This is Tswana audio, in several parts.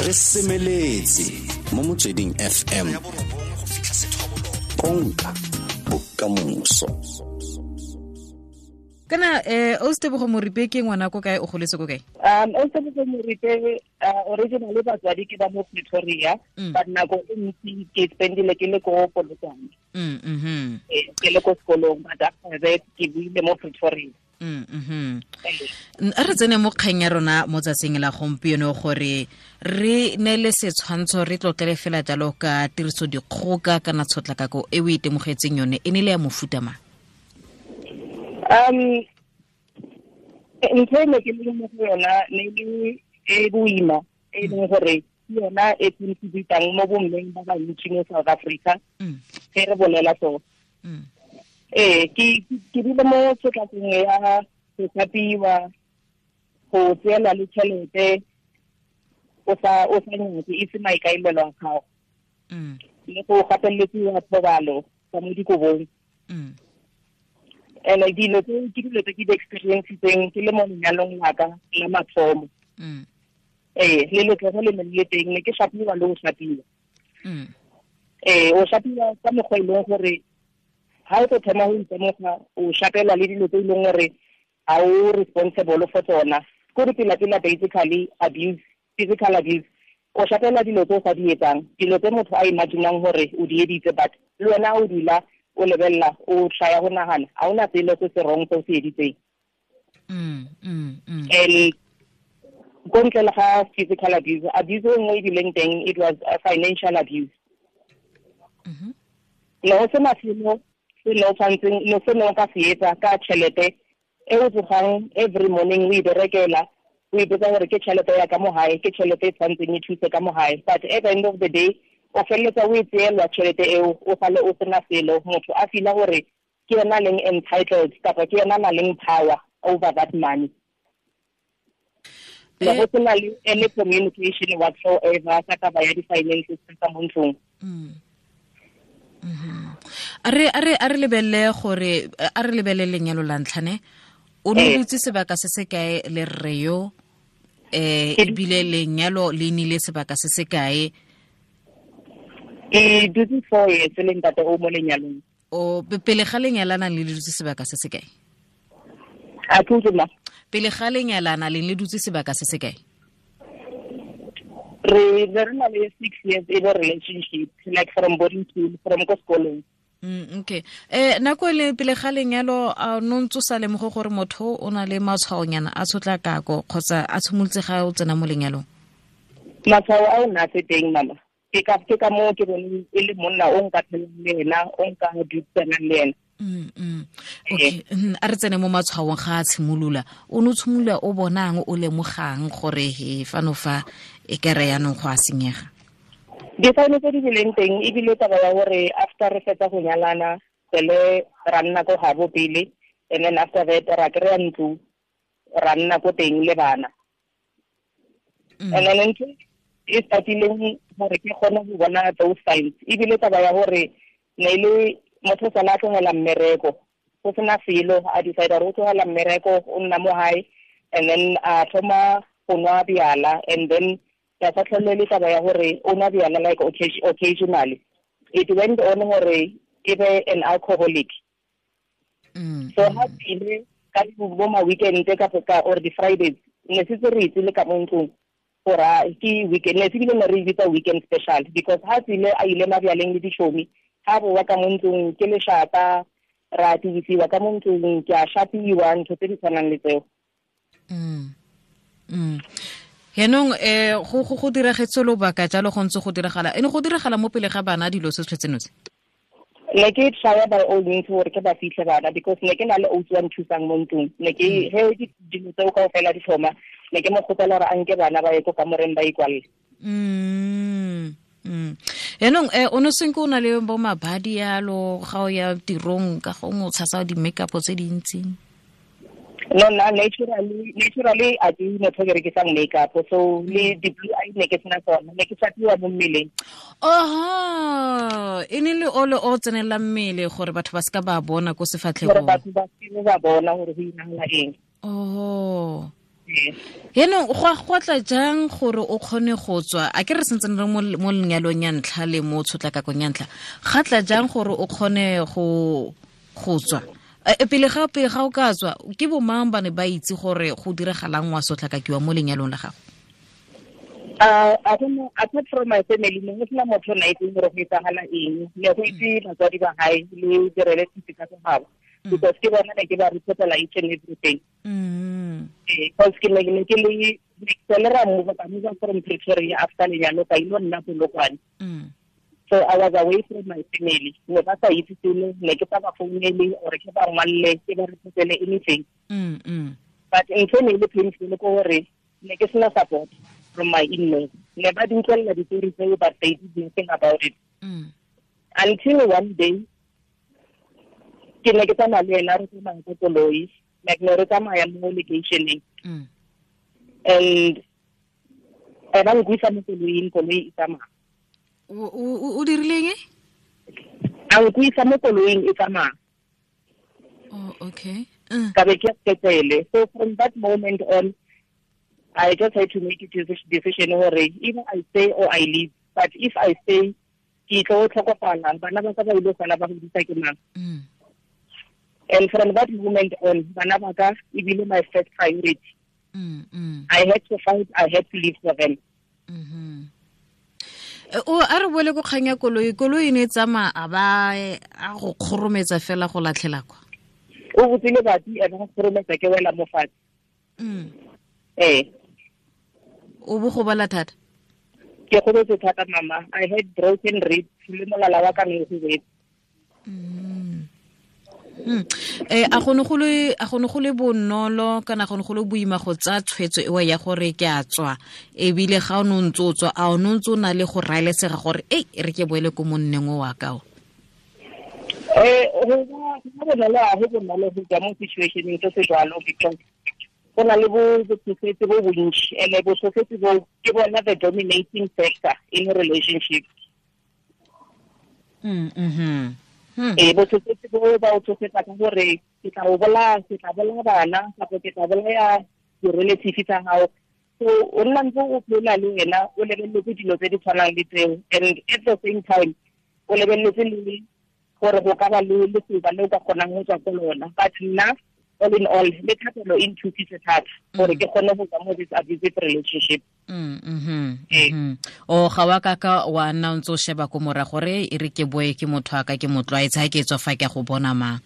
Re semeletse mo Motsweding FM, konka bokamoso. Kana o Tebogo Moripe ke ngwana ko kae, o goletse ko kae? O Tebogo Moripe, originally batswadi ke ba mo Pretoria, but nako e ntsi ke spendile ke le ko Polokwane. Ke le ko sekolong, but after that ke buile mo Pretoria. A re tsene mo kgang ya rona mo tsatsing la gompieno, gore re neele setshwantsho, re tlotlele fela jalo ka tiriso dikgoka kana tshotlakako e o itemogetseng yone, e ne le ya mofuta mang? Ntho e ne ke le mo go yona ne le e boima, e leng gore ke yona e contributang mo bommeng ba bantsi mo South Africa. Ge re bolela so, ee, ke dule mo tshotlakong ya go thapiwa, go tseelwa le tšhelete o sa nyake, e se maikaelelo a gago, le go gapelediwa thobalo ka mo dikobong. And dilo tse ke dilo tse ke di experiencetseng ke le mo lenyalong la ka la mathomo. Ee, le letlogo le ne le teng, ne ke shapiwa le go shapiwa. Ee, o shapiwa ka mokgwa e leng gore ha o tlo thoma go itemoga, o shapelwa le dilo tse e leng gore ga o responsible for tsona. Ko re pela-pela, basically abuse, physical abuse, o shapela dilo tse o sa di etsang, dilo tse motho a imaginang gore o di editse, but le wena o dula o lebelela, o tlaya go nagana, ga ona selo se se wrong se o se editseng. And ko ntle le ga physical abuse, abuse e nngwe e bileng teng, it was a financial abuse. Ne go sena selo se ne o tshwantseng, ne se ne o ka se etsa ka tšhelete e o tsogang every morning o e berekela, o ipotsa gore ke tšhelete ya ka mo gae, ke tšhelete e tshwantseng e thuse ka mo gae, but at the end of the day o feleletsa o e tseelwa tšhelete eo, o sale o sena selo. Motho a feela gore ke yena leng entitled kapa ke yena na leng power over that money. Le go sena le any communication whatsoever ka taba ya di-finances tsa mo ntlong. A re lebelele gore, a re lebelele lenyalo la ntlhane. O ne dutse sebaka se se kae le rre yo, ebile lenyalo le nile sebaka se se kae? Ke dutse 4 years le ntate o mo lenyalong. O pele ga lenyalana le dutse sebaka se se kae? A ke utlwe ma? Pele ga lenyalana le dutse sebaka se se kae? Re ne re na le 6 years in a relationship, like from boarding school, from ko sekolong. Okay, nako e le pele ga lenyalo, a no ntse o sa lemoge gore motho o na le matshwaonyana a tshotlakako, kgotsa a tshimolotse ga o tsena mo lenyalong? Matshwao a o na se teng, mama. Ke ka moo ke boneng e le monna o nka phelang le ena, o nka dudisanang le ena. Okay, a re tsene mo matshwaong ga a tshimolola. O ne o tshimolola o bonang, o lemogang gore he fano fa e kere yaanong go a senyega? Di-sign tse di bileng teng ebile taba ya gore after re fetsa go nyalana, sele ra nna ko gabo pele, and then after that ra kry-a ntlo, ra nna ko teng le bana. And then ntho e startileng gore ke kgone go bona those signs ebile taba ya gore ne e le motho sala a tlogela mmereko go sena selo, a decide gore o tlogela mmereko, o nna mo gae, and then a thoma go nwa bjala. And then ya sa tlhole le taba ya gore o nwa bjala like occasionally, it went on gore e be an alcoholic. So ha tsile ka bo ma weekend ka or di Fridays, ne setse re itse le ka mo ntlong gore ke weekend, ne se bile ne re bitsa weekend special, because ha tsile a ile mabjaleng le ditšhomi, ha boa ka mo ntlong ke lešata, ra tibisiwa ka mo ntlong, ke a shapiwa, ntho tse di tshwanang le tseo. Yaanong go diragetse lobaka jalo go ntse go diragala, ene go diragala mo pele ga bana dilo se tshwetseno tse? Ne ke try by all means gore ke ba fitlhe bana, because ne ke na le ausi wa nthusang mo ntlong. Ne ke he dilo tseo kaofela di thoma, ne ke mo kgopela gore a nke bana ba ye ko kamoreng ba ikwalle. Yaanong o ne senke o na le bo mabadi yalo ga o ya tirong, ka gongwe o tshasa di-makeup tse dintsi? No, na naturally a ke motho ke rekisang makeup, so le di-blue eye ne ke sena tsona, ne ke shapiwa mo mmeleng. Oho, e ne le ole o tsenelela mmele gore batho ba seka ba bona ko gore sefatlhegong. Batho ba seke ba bona gore go iragala eng. Oho. Yaanong go tla jang gore o kgone go tswa, a ke re sentse re mo lenyalong ya ntlha le mo tshotlakakong ya ntlha, ga tla jang gore o kgone go tswa? Pele ga o ka tswa, ke bo mang ba ne ba itse gore go diragalang wa sotlakakiwa mo lenyalong la gago? I don't know, apart from my family, ne go sena motho na itseng gore go etsagala eng. Ne go itse batswadi ba hae le di-relatives tsa gabo, because ke bona ne ke ba reportela each and everything. Because ke ne ke le ra move ka move from Pretoria after lenyalo ka ilo nna Polokwane. So I was away from my family. Ne ba sa itse selo, ne ke sa ba founele or ke ba ngwalle, ke ba reportele anything. But ntho ne e le painful ko gore ne ke sena support from my in-laws. Ne ba di utlwelela ditori tseo, but they did nothing about it. Until one day, ke ne ke tsamaya le ena, re tsamaya ka koloi, like ne re tsamaya mo locationeng. And ba nkuisa mo koloing, koloi e tsamaya. O dirileng e? A nkuisa mo koloing e tsamaya. Oh, okay. Ka be ke sepetlele. So from that moment on, I just had to make a decision gore either I stay or I leave. But if I stay, ke tlo tlhokofala, bana ba ka ba ile sala ba godisa ke mang. And from that moment on, bana ba ka e bile my first priority. I had to fight, I had to live for them. O a re boele ko kgang ya koloi, koloi e ne e tsamaya a ba a go kgorometsa fela go latlhela kwa. O botsile batsi a ba go kgorometsa ke wela mo fatshe. O bo go bala thata? Ke gobetse thata mama. I had broken ribs le molala wa ka ne o gobetse. A go ne go le bonolo kana go ne go le boima go tsaya tshwetso eo ya gore ke a tswa, ebile ga o ne o ntse o tswa, a o ne o ntse o na le go raelesega gore ei re ke boele ko monneng o wa ka o? Go bonolo, a go bonolo go tswa mo situationeng se se jwalo, because go na le botsofetse bo bontši, and botsofetse bo ke bona the dominating factor in a relationship. Botsofetse bo ba o tsofetsa ka gore ke tla o bolaya, ke tla bolaya bana, kapa ke tla bolaya di-relative tsa gago. So o nna ntse o phela le wena o lebeletse dilo tse di tshwanang le tseo, and at the same time o lebeletse le gore go ka ba le lesoba le o ka kgonang go tswa ko lona. But nna, all in all, le thapelo e nthusitse thata gore ke kgone go tswa mo this abusive relationship. O ga wa ka wa nna o ntse o sheba ko morago gore e re ke boe ke motho a ka ke motlwaetse, ha ke tswa fa ke go bona mang?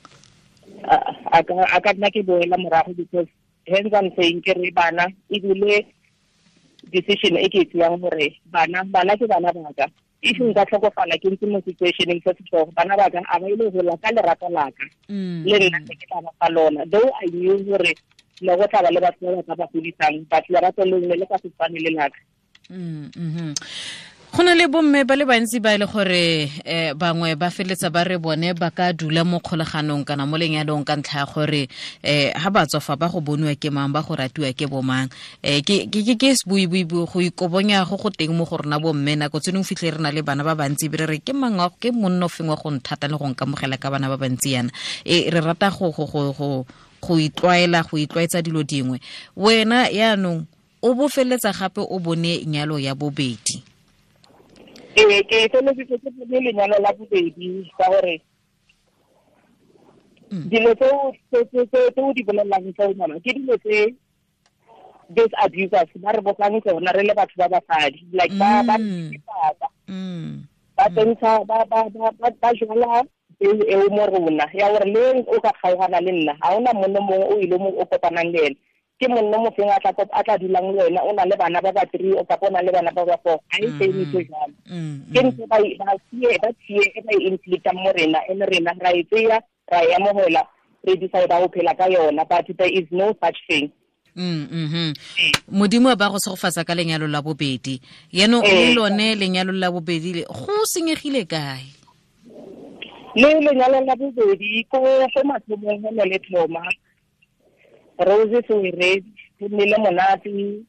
A ka nna ke boela morago, because hence I'm saying ke re bana, ebile decision e ke e tseyang gore bana ke bana ba ka. If nka tlhokofala ke ntse mo situationeng se setlhogo, bana ba ka a ba ile gola ka lerato la ka. Le nna ke tla ba fa lona. Though I knew gore ne go tla ba le batho ba ba ka ba godisang, but lerato leo ne le ka se tshwane le la ka. Go na le bomme ba le bantsi ba e le gore bangwe ba feletsa ba re bone ba ka dula mo kgolaganong kana mo lenyalong ka ntlha ya gore ha ba tswa fa ba go boniwa ke mang, ba go ratiwa ke bomang. Ke sebuibui go ikobonya go go teng mo go rona bomme, nako tse dingwe fitlhe re na le bana ba bantsi be re re ke mang ke monno feng wa go nthata le go nkamogela ka bana ba bantsi yana. Re rata go itlwaela, go itlwaetsa dilo dingwe. Wena yaanong o bo feletsa gape o bone nyalo ya bobedi. Ke feleletse ke bone lenyalo la bobedi ka gore dilo tse o di bolelelang tseo mama ke dilo tse these abusers ba re botsang tsona re le batho ba basadi, like ba ba tsentsha ba jwala peo eo mo rona ya gore le o ka kgaogana le nna ga ona monno mongwe o ile mo o kopanang le ene, ke monno mofeng a tla dulang le wena, o na le bana ba ba 3 o kapa o na le bana ba ba 4, ga e same ntho jalo. Ke ntho ba tsie e ba e inflictang mo rena, and rena ra e tseya ra e amogela, re decide go phela ka yona, but there is no such thing. Modimo ba go segofatsa ka lenyalo la bobedi. Yaanong le lone lenyalo la bobedi le go senyegile kae? Le lenyalo la bobedi ko mathomong go ne le thoma Rose Sewere, go nnile monate,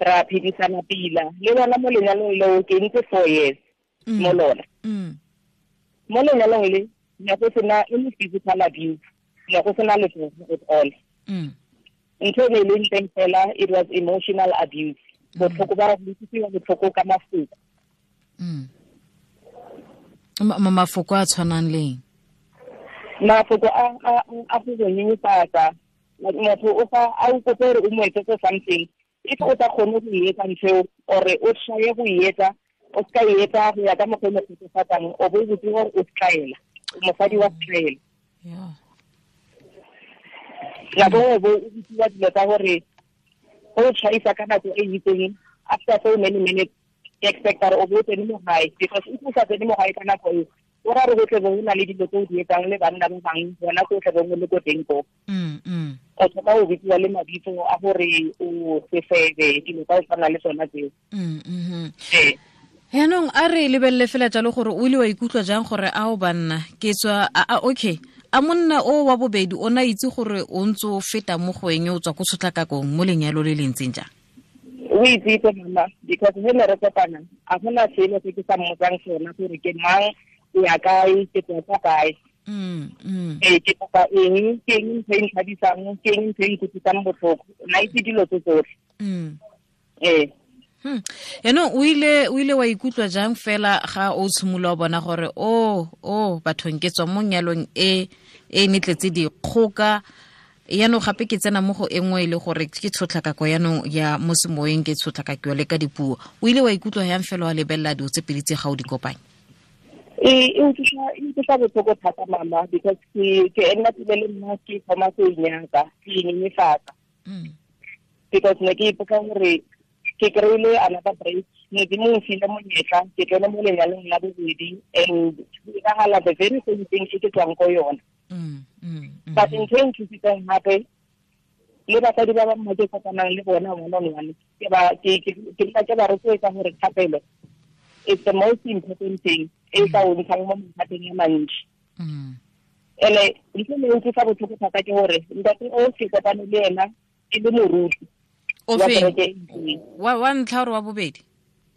ra phedisana pila. Le lona mo lenyalong leo ke ntse 4 years mo lona. Mo lenyalong le ne go sena any physical abuse, ne go sena letsogo at all. Ntho e ne e leng teng fela, it was emotional abuse. Botlhoko ba go utlwisiwa botlhoko ka mafoko. Mafoko a tshwanang leng? Mafoko a go go nyenyefatsa. Motho o fa a o kope gore o mo etsetse something, if o sa kgone go e etsa ntho eo, or o tshwaye go e etsa, o ska e etsa go ya ka mokgwa o mo kgotsofatsang, o bo o botse gore o setlaela, o mosadi wa setlaela. Nako nngwe bo o bitsiwa dilo tsa gore o tshwaisa ka nako e itseng, after so many minutes, ke expecta gore o bo o tsene mo gae, because if o sa tsene mo gae ka nako eo, o ra re go tle bo go na le dilo tse o di etsang le banna ba bangwe, bona ko tle bongwe le ko teng ko. O thoma o bitsiwa le mabitso a gore o sefebe, dilo tsa go tshwana le tsona tseo. Yaanong a re lebelele fela jalo gore o ile wa ikutlwa jang gore a o banna ke tswa a okay, a monna o wa bobedi o na itse gore o ntse o feta mo go eng, o tswa ko tshotlakakong mo lenyalo le le ntseng jang? O itsitse mama, because he ne re kopana a gona selo se ke sa mmotsang sona gore ke mang, o ya kae, ke tswa kwa kae. Ke kopa eng, ke eng ntho e nthabisang, ke eng ntho e nkutlwisang botlhoko, na itse dilo tse tsotlhe. Yaanong o ile wa ikutlwa jang fela ga o tshimolola o bona gore o bathong ke tswa mo nyalong e e netletse dikgoka, yaanong gape ke tsena mo go e nngwe e le gore ke tshotlakako yaanong ya mo semoyeng, ke tshotlakako le ka dipuo. O ile wa ikutlwa yang fela wa lebelela dilo tse pedi tse ga o di kopanya? E utlwisa botlhoko thata mama, because ke nna pele le nna ke thoma go inyatsa, ke inyenyefatsa. Because ne ke ipotsa gore ke kry-ile another break, Modimo o mfile monyetla, ke tsene mo lenyalong la bobedi, and go diragala the very same thing e ke tswang ko yona. But ntho e nthusitseng gape, le basadi ba bangwe ke kopanang le bona one on one, ke nna ke ba rotloetsa gore thapelo it's the most important thing e ka o ntshang mo mathateng a mantsi. Ene ntho e utlwisa botlhoko thata ke gore ntate o ke kopane le ena e le moruti. O feng? Wa ntlha or wa bobedi?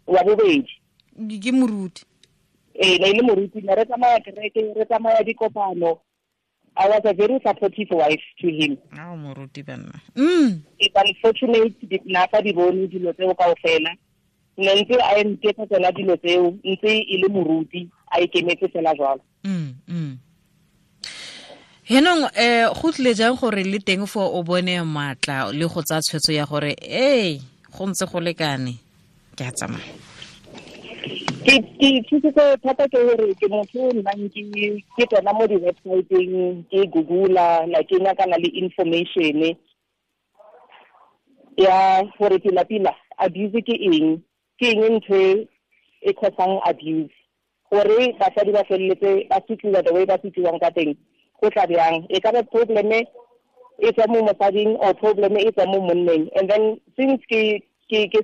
Wa bobedi. Ke moruti. Ee, ne e le moruti, ne re tsamaya kereke, re tsamaya dikopano. I was a very supportive wife to him. Ao moruti banna. It's unfortunate na sa di bone dilo tseo kaofela. Ne ntse a nketsa tsona dilo tseo, ntse e le moruti, a ikemetse fela jwalo. Henong go tlile jang gore le teng fo o bone matla le go tsaya tshwetso ya gore ei go ntse go lekane ke a tsamaya? Ke thusitse thata ke gore ke motho o nnang ke tsena mo di-website-eng, ke Google-a, like ke nyakana le information ya gore pila-pila abuse ke eng, ke eng ntho e causang abuse, gore basadi ba feleletse ba sotliwa the way ba sotliwang ka teng, go tla bjang, e ka ba problem e tswa mo mosading or problem e tswa mo monneng. And then since ke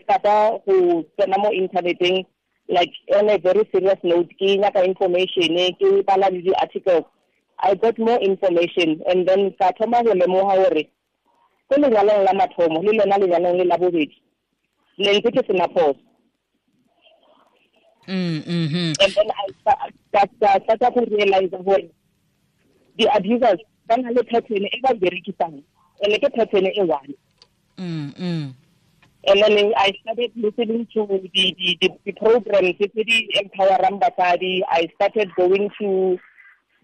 starta go tsena mo interneteng, like on a very serious note, ke nyaka information, ke bala le di-articles, I got more information, and then ka thoma go lemoga gore ko lenyalong la mathomo le lona lenyalong le la bobedi ne ntse ke sena phoso. And then I started to realize gore the abusers ba na le pattern e ba berekisang, and ke pattern e one. And then I started listening to the programs tse di empowerang basadi. I started going to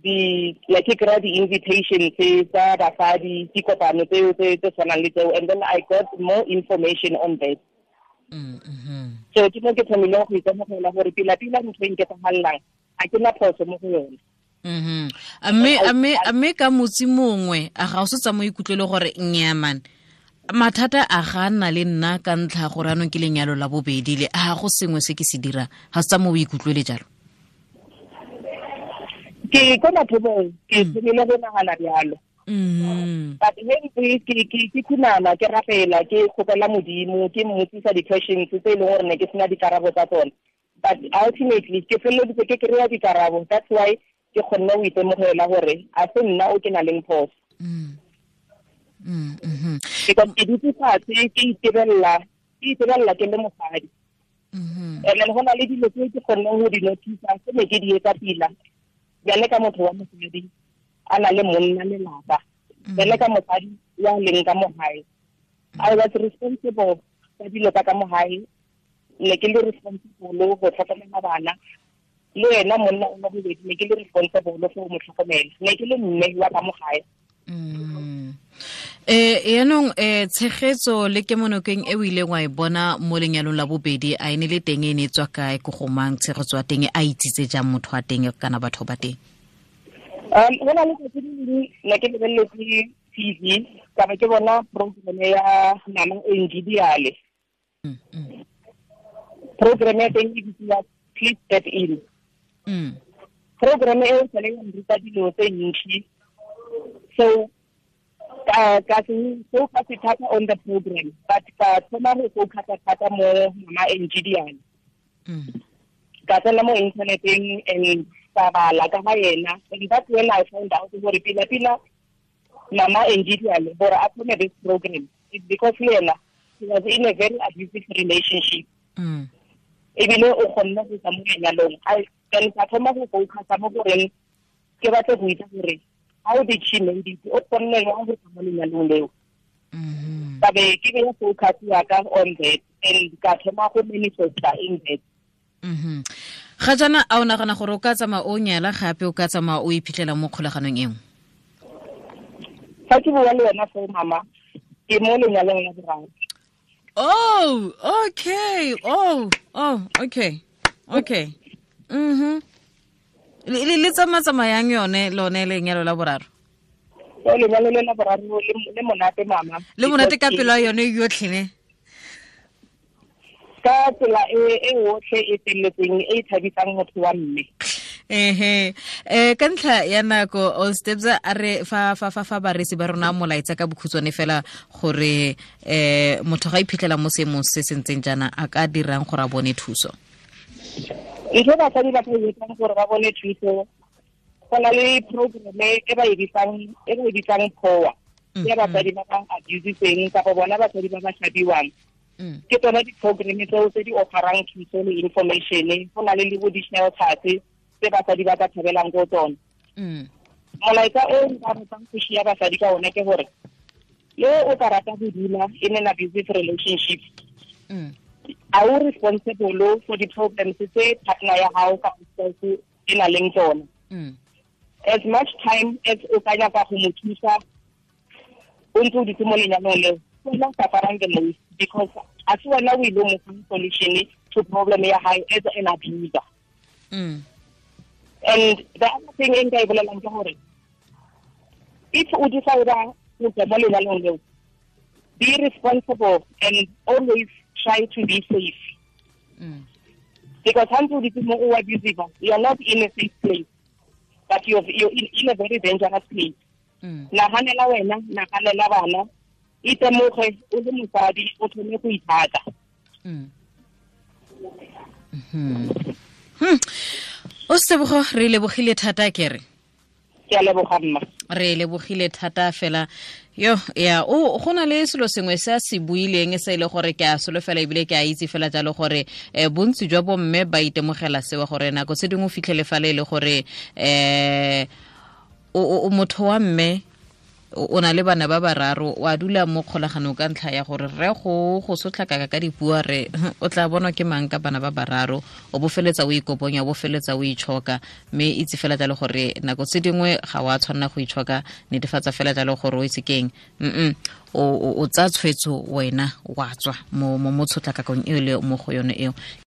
the like ke kry-a di-invitation tse tsa basadi, dikopano tseo tse tshwanang le tseo, and then I got more information on that. So ke mo ke thomileng go itemogela gore pila-pila ntho e nketsagalelang ga ke na phoso mo go yone. Mme ka motsi mongwe a ga o se tsa mo ikutlwele gore nnyaa mathata a ga nna le nna ka ntlha gore anong ke lenyalo la bobedi le a go sengwe se ke se dirang, ga se tsa mo o ikutlwele jalo? Ke ko mathomong ke thomile go nagana bjalo. But he ke khunama, ke rapela, ke kgopela Modimo, ke mmotsisa di-questions tse e leng gore ne ke sena dikarabo tsa tsone. But ultimately ke feleleditse ke kry-a dikarabo. That's why ke kgonne go itemogela gore a se nna o ke nang le phoso. Because ke dutse fatshe ke itebelela ke le mosadi. And then go na le dilo tse ke kgonneng go di notice-a tse ne ke di etsa pila. Bjale ka motho wa mosadi a na le monna lelapa, bjale ka mosadi ya leng ka mo gae. I was responsible ka dilo tsa ka mo gae, ne ke le responsible go tlhokomela bana, le ena monna o bobedi ne ke le responsible for mo tlhokomela, ne ke le mme wa ka mo gae. Yaanong tshegetso le kemonokeng e o ileng wa e bona mo lenyalong la bobedi, a e ne le teng, e ne e tswa kae, ko go mang, tshegetso ya teng a itsitse jang motho wa teng kana batho ba teng? Go na le tsatsi le lengwe ne ke lebeletse TV, ka be ke bona program ya Mama Angie Diale. Program ya teng e bitsiwa Please Step In. Program e o sale ya nruta dilo tse ntsi. So ka se focus thata on the program, but ka thoma go focus thata mo Mama Angie Diale. Ka tsena mo interneteng and ka bala ka ga yena, and that's when I found out gore pila pila Mama Angie Diale gore a thome this program it's because le yena he was in a very abusive relationship. Ebile o kgonne go tswa mo lenyalong. Then ka thoma go focus mo goreng ke batla go itse gore how did she made it, o kgonne jang go tswa mo lenyalong leo. Ka be ke beya focus ya ka on that and ka thoma go manifesta in that. Ga jaana a o nagana gore o ka tsamaya o nyala gape, o ka tsamaya o iphitlhela mo kgolaganong e nngwe? Fa ke bua le wena foo mama, ke mo lenyalong la boraro. Oh, okay. Oh, okay. Okay. Le tsamayang yone lone lenyalo la boraro? Lenyalo le la boraro le monate mama. Le monate ka pelo ya yone yotlhe ne? Ka tsela e otlhe e felletseng e thabisang motho wa mme. Ka ntlha ya nako, All Steps a re fa fa fa fa baresi ba rona molaetsa ka bokhutshwane fela gore motho ga iphitlhela mo seemong se se ntseng jaana a ka dirang gore a bone thuso. Ntho basadi ba ka etsang gore ba bone thuso, go na le program e ba e bitsang POA, ya basadi ba ba abusitseng kapa bona basadi ba ba shabiwang. Ke tsona di-program tseo tse di offerang thuso le information, go na le bo di-shelters tse basadi ba ka thabelang ko tsona. Molaetsa o nka ratang go shia basadi ka ona ke gore le o ka rata go dula in an abusive relationship, are you responsible for the problems tse partner ya hao ka spouse e na leng tsona? As much time as o ka nyaka go mo thusa o ntse o dutse mo lenyalong leo, wena o suffering the most, because a se wena o ile mo fa solution to problem ya hae as an abuser. And the other thing e nka e bolelang ke gore if o decide go tswa mo lenyalong leo, be responsible and always try to be safe. Because once you become more abusive, you are not in a safe place, but you're in a very dangerous place. Nahanela wena, nahanela bana, itemoge o le mosadi o thome go ithata. O Sebogo, re lebogile thata kere. Ke a leboga mma. Re lebogile thata fela. Yo, ya, o go na le selo sengwe se a se buileng se ile gore ke a solofela ebile ke a itse fela jalo gore bontsi jwa bomme ba itemogela sewa gore nako tse dingwe o fitlhele fa le gore o motho wa mme o na le bana ba bararo, wa dula mo kgolaganong ka ntlha ya gore re go sotlhakaka ka dipuo, re o tla bonwa ke mang ka bana ba bararo, o bofeletsa o ikoponya, o bofeletsa o itshoka, mme itse fela jalo gore nako tse dingwe ga wa tshwanela go itshoka, netefatsa fela jalo gore o itse keng, o tsaya tshwetso wena wa tswa mo tshotlakakong eo le mo go yone eo.